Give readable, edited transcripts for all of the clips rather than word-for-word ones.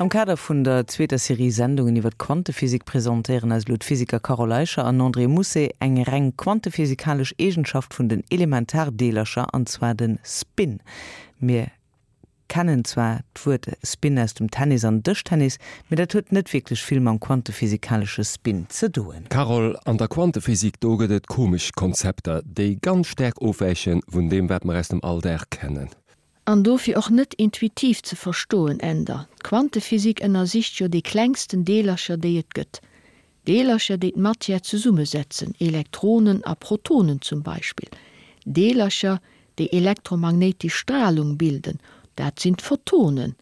Am Kader vun der zweeter Serie Sendungen iwwer d'Quantephysik presentéieren eis elo d'Physiker Carole Eicher an André Mousset eng reng quantephysikalesch Eegenschaft vun den Elementardeelercher, an zwar de Spin. Mir kennen zwar d'Wuert Spin aus dem Tennis an Dëschtennis, mee dat huet net wierklech vill mam quantephysikalesche Spin ze doen. Carole, an der Quantephysik, do gëtt et komesch Konzepter, déi ganz staark ofwäiche vun deem, wat mer aus dem Alldag kennen. An dofir och net intuitiv ze verstoen, Änder. D'Quantephysik ënnersicht jo déi klengsten Deelercher, déi et gëtt. Deelercher, déi d'Matière zesummesetzen, Elektronen a Protonen zum Beispill. Deelercher, déi elektromagnéitesch Stralung bilden, dat sinn d'Photonen.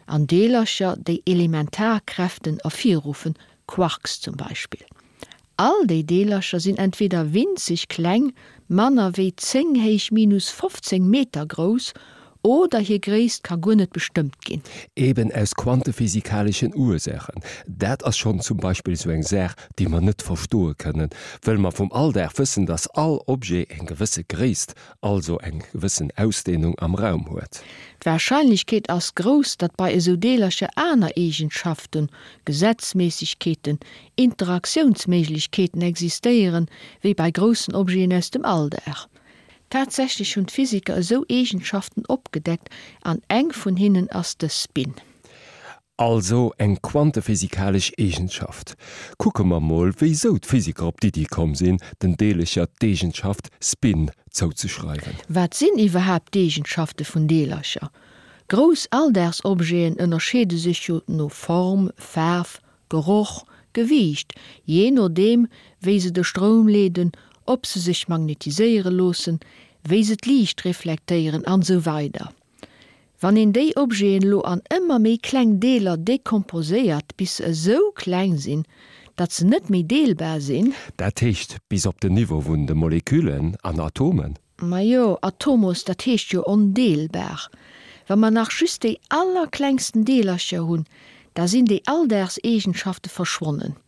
An Deelercher, déi Elementarkräften ervirruffen, Quarks zum Beispill. All déi Deelercher sinn entweder winzeg kleng, manner wéi 10 héich minus 15 Meter grouss, oder hir Gréisst ka guer net bestëmmt ginn. Eben aus quantephysikaleschen Ursaachen. Dat ass schonn zum Beispill esou eng Saach, déi mer net verstoe kënnen, wëll mer vum Alldag wëssen, dass all Objet eng gewësse Gréisst also eng gewëssen Ausdehnung am Raum huet. D'Warscheinlechkeet ass grouss, datt bei esou Deelercher aner Eegenschaften, Gesetzméissegkeeten, Interaktiounsméiglechkeeten existéieren, wéi bei groussen Objeten aus dem Alldag. Tatsächlech hunn d'Physiker esou Eegenschaften opgedeckt an eng vun hinnen ass de Spin. Also eng quantephysikalesch Eegenschaft. Kucke mer mol, wéisou d'Physiker op d'Iddi komm sinn, den Deelercher d'Eegenschaft Spin zouzeschreiwen. Wat sinn iwwerhaapt d'Eegenschafte vun Deelercher? Grouss Alldagsobjeten ënnerscheede sech jo no Form, Faarf, Geroch, Gewiicht, jee nodeem wéi se de Stroum leeden, ob se sech magnetiséiere loossen, wéi se d'Liicht reflektéieren an esou weider Wann een déi Objeten elo an ëmmer méi kleng Deeler dekomposéiert, bis se esou kleng sinn, datt se net méi deelbar sinn. Dat heescht bis op den Niveau vun de Moleküllen an Atomen? Majo, Atomos, dat heescht jo ondeelbar. Wa mer nach just déi allerklengsten Deelercher hunn, da sinn déi Alldagseegenschafte verschwonnen.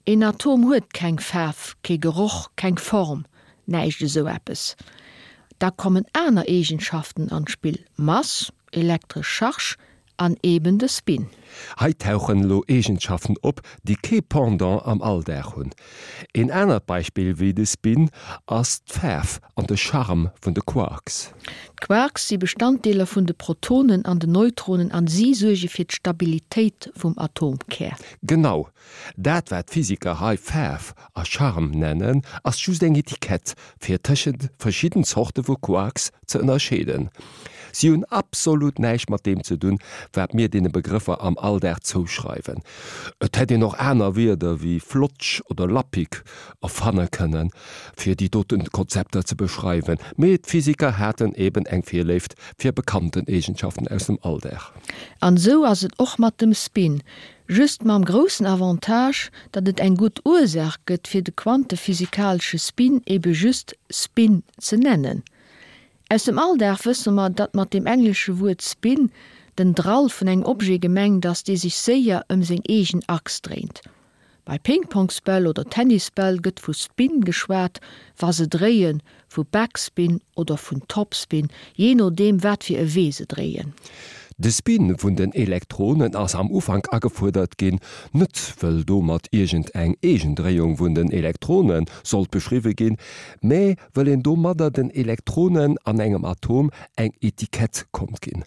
Een Atom huet keng Faarf, kee Geroch, keng Form, näischt esou eppes. Da kommen aner Eegenschaften an d'Spill, Mass, elektresch Charge an eben de Spin. Hei tauchen elo Eegenschaften op, déi kee Pendant am Alldag hunn. Een anert Beispill wéi de Spin ass d'Faarf an de Charme vun de Quarks. D'Quarks si Bestanddeeler vun de Protonen an den Neutronen an si suerge fir d'Stabilitéit vum Atomkär. Genau Dat wat d'Physiker hei Faarf a Charme nennen, ass just eng Etikett, fir tëschent verschidden Zorte vu Quarks ze ënnerscheeden. Si hunn absolut näischt mat deem ze dunn, wat mir deene Begrëffer am Alldag zouschreiwen. Et hätt een och aner Wierder wéi Flotsch oder Lappig erfanne kënnen, fir déi doten Konzepter ze beschreiwen, mee d'Physiker haten eben eng Virléift fir bekannten Eegenschaften aus dem Alldag. An esou ass et och mat dem Spin. Just mam groussen Avantage, datt et eng gutt Ursaach gëtt fir de quantephysikalesche Spin ebe just Spin ze nennen. Aus dem Alldag wësse mer, datt mat dem englesche Wuert spin den Drall vun engem Objet gemengt ass, dee sech séier ëm seng eegen Achs dréint. Bei Pingpongsbäll oder Tennisbäll gëtt vu Spin geschwat, wa se dréien, vu Backspin oder vun Topspin, jee nodeem wat fir e Wee se dréien. De Spin vun den Elektronen ass am Ufank agefuerdert ginn, net wëll domat iergend eng Eegendréiung vun den Elektrone sollt beschriwwe ginn, mä wëll een domadder den Elektronen an engem Atom eng Etikett konnt ginn.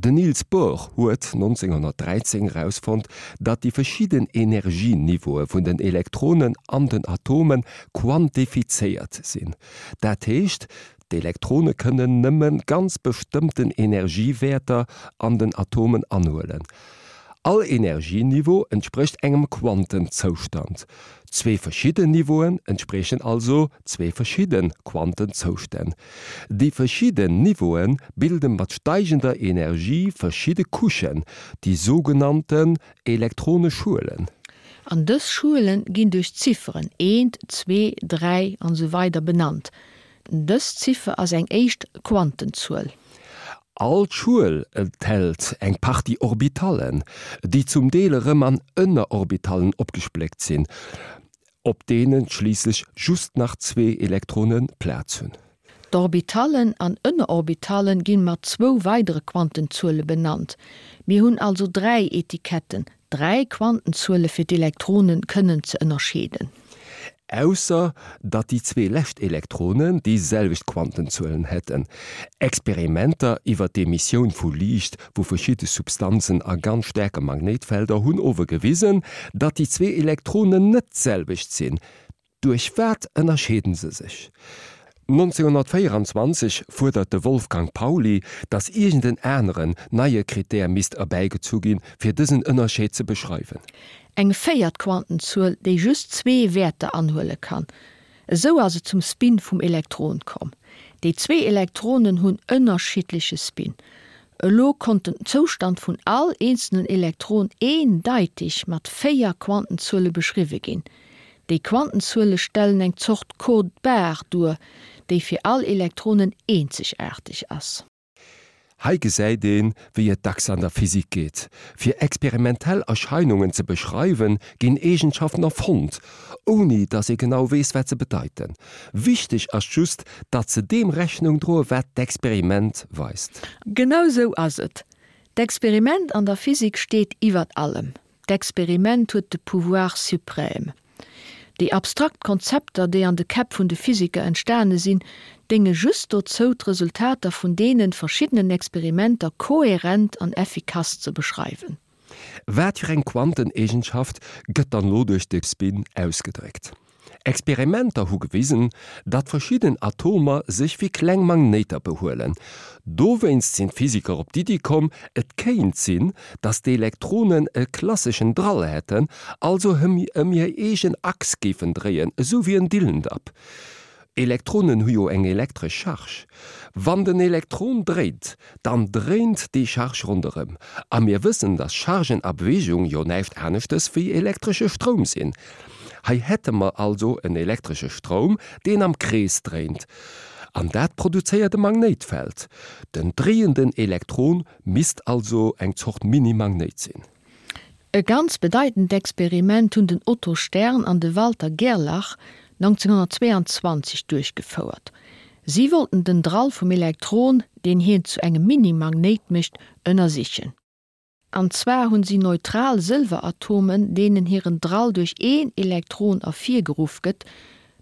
Den Niels Bohr huet 1913 erausfonnt, datt déi verschidden Energieniveaue vun den Elektronen an den Atome quantifizéiert sinn. Dat heescht, d'Elektrone kënnen nëmme ganz bestëmmten Energiewäerter an den Atomen anhuelen. All Energieniveau entsprécht engem Quantenzoustand. Zwee verschidden Niveauen entspriechen also zwee verschidde Quantenzoustänn. Déi verschidden Niveaue bilde mat steigender Energie verschidde Couchen, déi sougenannten Elektroneschuelen. An dës Schuele ginn duerch d'Zifferen eent, zwee, dräi an esou weider benannt. Dës Ziffer ass eng éischt Quantenzuel. All Schuel enthält eng Partie Orbitallen, déi zum Deel erëm an Ënnerorbitalen opgespléckt sinn, op deene schliisslech just nach zwee Elektrone Plaz hunn. D'Orbitallen an Ënnerorbitallen ginn mat zwou weidere Quantenzuele benannt. Mir hunn also 3 Etiketten, 3 Quantenzuele fir d'Elektronen kënnen ze ënnerscheeden. Ausser datt déi zwee lescht Elektronen déi selwecht Quantenzuelen hätten. Experimenter iwwer d'Emissioun vu Liicht vu verschidde Substanzen a ganz staarke Magnéitfelder hunn ower gewisen, datt déi zwee Elektronen net d'selwecht sinn. Duerch wat ënnerscheeden se sech? 1924 fuerdert de Wolfgang Pauli, datt iergend en aneren, neie Krittär misst erbäigezu ginn, fir dësen Ënnerscheed ze beschreiwen. Eng véiert Quantenzuel, déi just zwee Wäerter anhuele kann. Esou ass et zum Spin vum Elektron komm. Déi zwee Elektronen hunn ënnerschiddleche Spin. Elo konnt den Zoustand vun all eenzelnen Elektron eendeiteg mat véier Quantenzuele beschriwwe ginn. Déi Quantenzuele stellen eng Zort Code-barre duer, déi fir all Elektronen eenzegaarteg ass. Hei gesäit een, wéi et dacks an der Physik geet, Fir experimentell Erscheinungen ze beschreiwen, ginn Eegenschaften erfonnt, ouni datt ee genau weess, wat se bedeiten. Wichteg ass just, datt se deem Rechnung droe wat d'Experiment weist. Genau sou ass et. D'Experiment an der Physik steet iwwert allem. D'Experiment huet de Pouvoir suprême. Déi abstrakt Konzepter, déi an de Käpp vun de Physiker entstane sinn, dénge just dozou, d'Resultater vun deene verschiddenen Experimenter kohärent an effikass ze beschreiwen. Wat fir eng Quanteneegenschaft gëtt dann lo duerch de Spin ausgedréckt? Experimenter hu gewisen, datt verschidden Atomer sech wéi kleng Magnéiter behuelen. Dowéinst sinn d'Physiker op d'Iddi komm, et kéint sinn, datt d'Elektronen e klasseschen Drall hätten, also ëm hir eegen Achs géifen dréien, esou wéi en Dillendapp. Elektronen hu jo eng elektresch Charge. Wann den Elektron dréint, dann dréint déi Charge ronderëm. A mir wëssen, dass Chargen a Beweegung jo näischt aneschtes wéi elektresche Stroum sinn. Hei hätte mer also en elektresche Stroum, deen am Krees dréint. An dat produzéiert e Magnéitfeld. Den dréienden Elektron misst also eng Zort Mini-Magnéit sinn. E ganz bedeitend Experiment hunn den Otto Stern an de Walter Gerlach 1922 duerchgefouert. Si wollten den Drall vum Elektron, deen hien zu engem Mini-Magnéit mécht, ënnersichen. An zwar hunn si neutral Sëlweratomen, deenen hiren Drall duerch een Elektron ervirgeruff gëtt,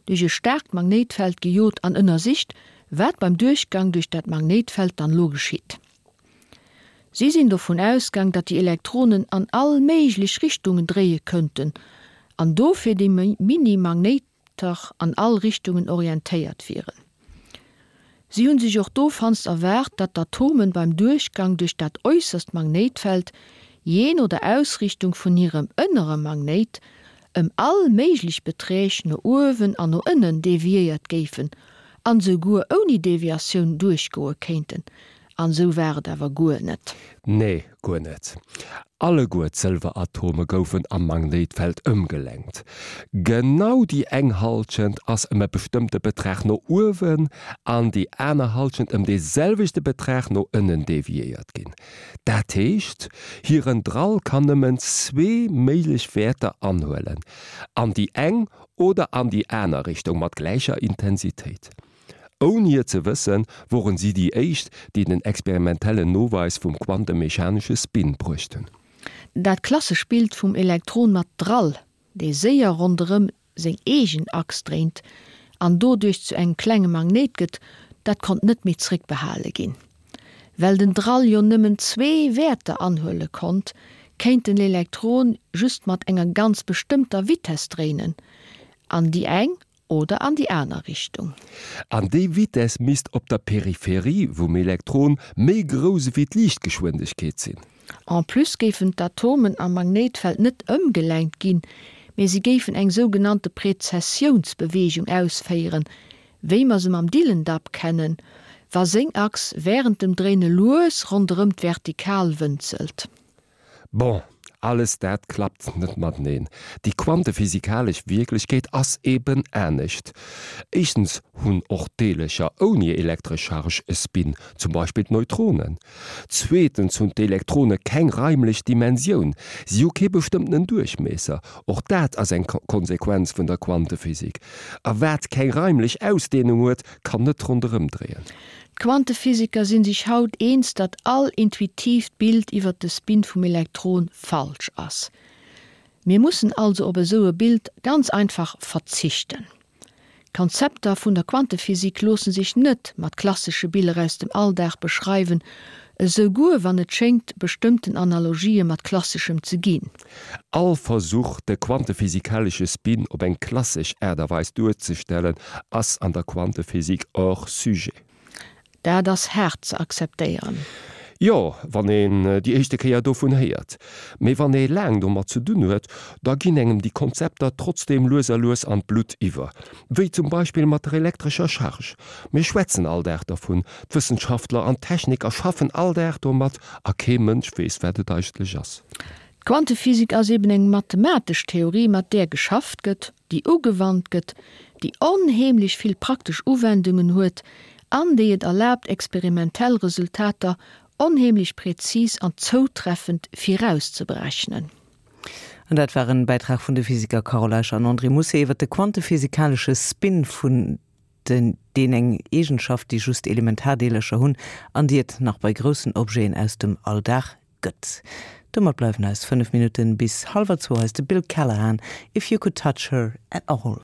duerch e staarkt Magnéitfeld gejot an ënnersicht, wat beim Duerchgang duerch dat Magnéitfeld dann elo geschitt. Si sinn dovun ausgaang, datt déi Elektronen an all méiglech Richtungen dréie könnten an dofir déi Mini-Magnéiter an all Richtungen orientéiert wieren. Si hunn sech och dowannst erwaart, datt d'Atomen beim Duerchgang duerch dat äusserst Magnéitfeld, jee no der Ausrichtung vun hirem ënnere Magnéit, ëm all méiglech Beträg no uewen an no ënnen deviéiert géifen an esouguer ouni Deviatioun duerchgoe kéinten. An esou war et awer guer net. Nee, guer net. Alleguer d'Sëlweratome goufen am Magnéitfeld ëmgelenkt. Genau déi eng Hallschent ass ëm e bestëmmte Betrag no uewen an déi aner Hallschent ëm dee selwechte Betrag no ënnen deviéiert ginn. Dat heescht, hiren Drall kann nëmmen zwee méiglech Wäerter anhuelen, an déi eng oder an déi aner Richtung mat gläicher Intensitéit. Ouni et ze wëssen, woren si déi éischt, déi den experimentellen Noweis vum quantemechanesche Spin bruecht hunn. Dat klassesch Bild vum Elektron mat Drall, dee séier ronderëm seng eegen Achs dréint an doduerch zu engem klenge Magnéit gëtt, dat konnt net méi zréckbehale ginn. Well den Drall jo nëmmen zwee Wäerter anhuele konnt, kéint den Elektron just mat enger ganz bestëmmter Vitess dréinen, an déi eng oder an déi aner Richtung. An déi Vitess misst op der Peripherie vum Elektron méi grouss ewéi d'Liichtgeschwindegkeet sinn. En plus géifen d'Atomen am Magnéitfeld net ëmgelenkt ginn, mee si géifen eng sougenannte Prezessiounsbeweegung ausféieren, wéi mer se mam Dillendapp kennen, wa seng Achs wärend dem Dréine lues ronderëm d'Vertikal wënzelt. Bon, Alles dat klappt net mateneen. Déi quantephysikalesch Wierklechkeet ass eben anescht. Éischtens hunn och Deelercher ouni elektresch Charge e Spin, zum Beispill d'Neutronen. Zweetens hunn d'Elektrone keng raimlech Dimensioun, si hu kee bestëmmtenen Duerchmiesser. Och dat ass eng Konsequenz vun der Quantephysik. A wat keng raimlech Ausdeenung huet, kann net ronderëm dréien. D'Quantephysiker sinn sech haut eens, datt all intuitiivt Bild iwwer de Spin vum Elektron falsch ass. Mir mussen also op esou e Bild ganz einfach verzichten. D'Konzepter vun der Quantephysik loosse sech net mat klassesche Biller aus dem Alldag beschreiwen, esouguer wann et schéngt bestëmmten Analogië mat Klasseschem ze ginn. All Versuch, de quantephysikalesche Spin op eng klassesch Aart a Weis duerzestellen, ass an der Quantephysik hors sujet. Dat ass haart ze akzeptéieren. Jo, wann een déi éischte Kéier dovun héiert. Mee wann ee laang domat ze dunn huet, da ginn engem déi Konzepter trotzdeem lues a lues an d'Blutt iwwer. Wéi zum Beispill mat der elektrescher Charge. Mir schwätzen all Dag dervun, d'Wëssenschaftler an d'Techniker schaffen all Dag domat a kee Mënsch weess, wat et eigentlech ass. D'Quantephysik ass eben eng mathematesch Theorie, mat där geschafft gëtt, déi ugewannt gëtt, déi onheemlech vill praktesch Uwendungen huet an déi et erlaabt, experimentell Resultater onheemlech präzis an zoutreffend virauszeberechnen. An dat war en Bäitrag vun de Physiker Carole Eicher an André Mousset iwwer de quantephysikalesche Spin vun den, deen eng Eegenschaft, déi just Elementardeelercher hunn an déi et nach bei groussen Objeten aus dem Alldag gëtt. Domat bleiwen eis 5 Minutten bis hallwer zwou. Hei ass de Bill Callahan, If You Could Touch Her At All.